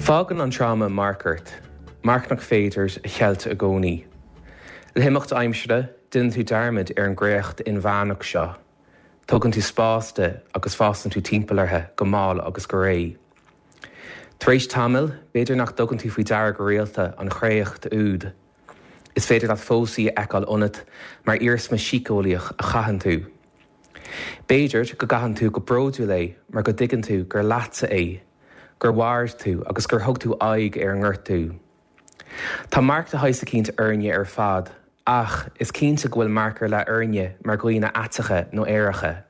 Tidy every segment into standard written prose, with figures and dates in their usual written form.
Fágann an tráma marc ort, marc nach féidir a cheilt i gcónaí. Le himeacht aimsire, déanann tú dearmad ar an gcréacht inmheánach seo, tógann tú spás di agus fásann tú timpeall uirthi go mall agus go réidh. Tar éis tamaill, b'fhéidir nach dtugann tú faoi deara go rialta an chréacht úd. Is féidir leat fós í a fheiceáil ionat mar iarsma síceolaíoch a chaitheann tú. B'fhéidir go gcaitheann tú go bródúil é mar go dtuigeann tú gur leatsa é, gur mhair tú agus gur thug tú aghaidh ar an ngortú. Tá marc de shaghas eicínt orainne ar fad ach is cinnte go bhfuil marc ar leith orainne mar dhaoine aiteacha nó aeracha.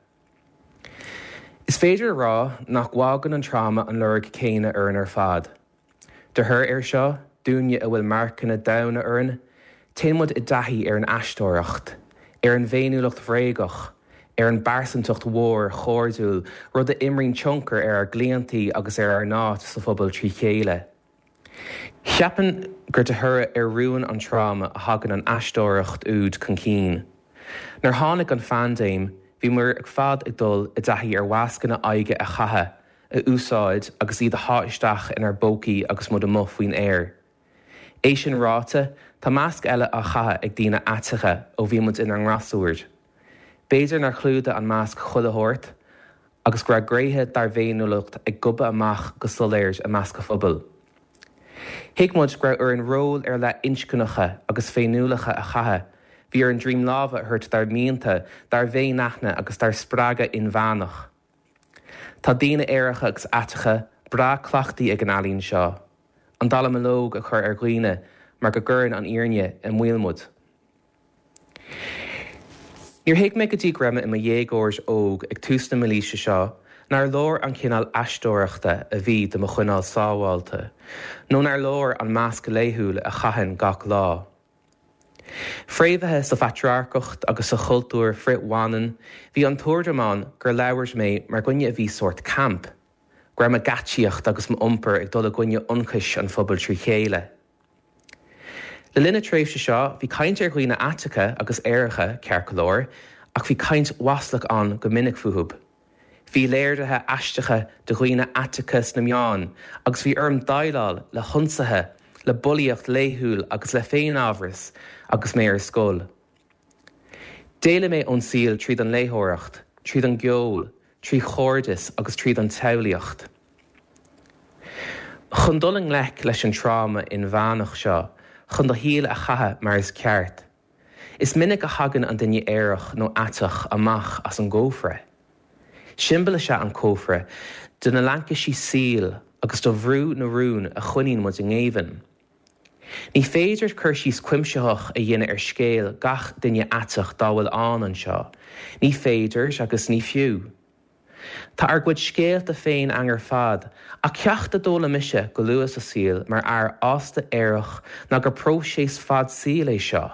Is féidir a rá nach bhfágann an tráma an lorg céanna orainn ar fad. De thoradh air seo, dúinne a bhfuil marcanna domhaine orainn, téann muid i dtaithí ar an aisteoireacht, ar an bhféiniúlacht bhréagach, ar an bpearsantacht mhór chairdiúil, rud a imríonn tionchar ar ár gclaontaí agus ar ár n-áit sa phobal trí chéile. Cheapfainn gur de thoradh ar rúin an tráma a thagann an aisteoireacht úd chun cinn. Nuair tháinig an phaindéim, bhí muid ar fad ag dul i dtaithí ar mhascanna aghaidhe a chaitheamh, a úsáid agus iad a shá isteach inár bpócaí agus muid amuigh faoin aer. É sin ráite, tá masc eile á chaitheamh ag daoine aiteacha ó bhí muid inár ngasúir. B'fhéidir nár chlúdaigh an masc chuile shórt agus go raibh gnéithe dár bhféiniúlacht ag gobadh amach go soiléir i measc an phobail. Thuig muid go raibh orainn róil ar leith inscneacha agus féiniúlacha a chaitheamh, bhí orainn droim láimhe a thabhairt dár mianta, dár bhféinaithne agus dár spreagadh inmheánach. Tá daoine aeracha agus aiteacha breá cleachtaithe ag an ealaín seo, an dallamullóg a chur ar dhaoine mar go gcuireann an fhírinne i mbaol muid. Níor thuig mé go dtí go raibh mé i mo dhéagóir óg ag tús na mílaoise seo nár leor an cineál aisteoireachta a bhí do mo choinneáil sábháilte, nó nár leor an masc laethúil a chaithfinn gach lá. Fréamhaithe sa phatrarcacht agus sa chultúr frith-bhaineann, bhí an tuairim ann gur labhair mé mar dhuine a bhí sórt camp, go raibh mo gheaitsíocht agus m'iompar ag dul i gcoinne ionchais an phobail trí chéile. Le linn na tréimhse seo, bhí caint ar dhaoine aiteacha agus aeracha, ceart go leor, ach bhí caint mhaslach ann go minic fúthu. Bhí léirithe aisteacha de dhaoine aiteacha sna meáin agus bhí orm déileáil le hionsaithe, le bulaíocht laethúil agus le féinamhras agus mé ar scoil. D'éalaigh mé ón saol tríd an léitheoireacht, tríd an gceol, trí chairdeas agus tríd an tsamhlaíocht. Chun dul i ngleic leis an tráma inmheánach seo, chun do shaol a chaitheamh mar is ceart, Is minic a thagann an duine aerach nó aiteach amach as an gcófra. Siombail is ea an cófra de na laincisí saoil agus de bhrú na rún a choinníonn muid i ngéibheann. Ní féidir cur síos cuimsitheach a dhéanamh ar scéal gach duine aiteach dá bhfuil ann anseo, ní féidir agus ní fiú. Tá ár gcuid scéalta féin againn ar fad, ach ceacht a d'fhoghlaim mise go luath sa saol mar fhear fásta aerach ná gur próiseas fad saoil é seo.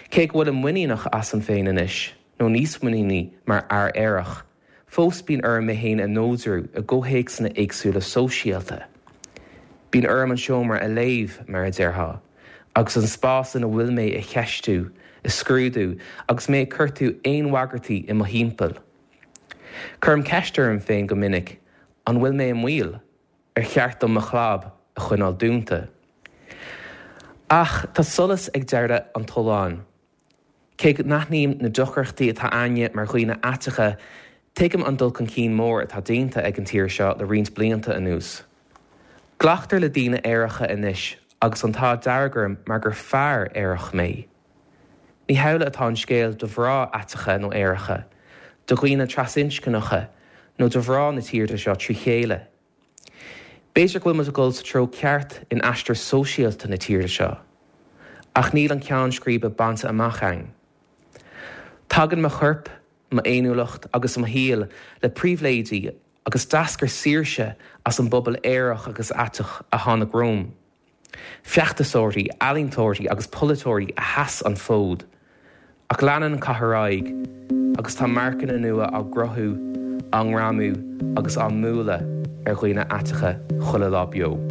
Cé go bhfuilim muiníneach asam féin anois, nó níos muiníní mar fhear aerach, fós bíonn orm mé féin a neodrú i gcomhthéacsanna éagsúla sóisialta. Bíonn orm an seomra a léamh, mar a déarfá, agus an spás ina bhfuil mé a cheistiú, a scrúdú agus mé ag cuartú aon bhagairtí i mo thimpeall. Cuirim ceist orm féin go minic, an bhfuil mé i mbaol? Ar cheart dom mo chlab a choinneáil dúnta? Ach tá solas ag deireadh an tolláin. Cé go n-aithním na deacrachtaí atá againne mar dhaoine aiteacha, tuigim an dul chun cinn mór atá déanta ag an tír seo le roinnt blianta anuas. Glactar le daoine aeracha anois agus an t-ádh dearg orm mar gur fear aerach mé. Ní hamhlaidh atá an scéal do mhná aiteacha nó aeracha, do dhaoine trasinscneacha nó do mhná na tíre seo trí chéile. B'fhéidir go bhfuil muid ag dul sa treo ceart in aistear sóisialta na tíre seo, ach níl an ceann scríbe bainte amach againn. Tagann mo chorp, m'fhéiniúlacht agus mo shaol le pribhléidí agus d'eascair saoirse as an bpobal aerach agus aiteach a tháinig romham. Feachtasóirí, ealaíontóirí agus polaiteoirí a sheas an fód. Ach leanann an cath ar aghaidh agus tá marcanna nua á gcruthú, á ngreamú agus á mbualadh ar dhaoine aiteacha chuile lá beo.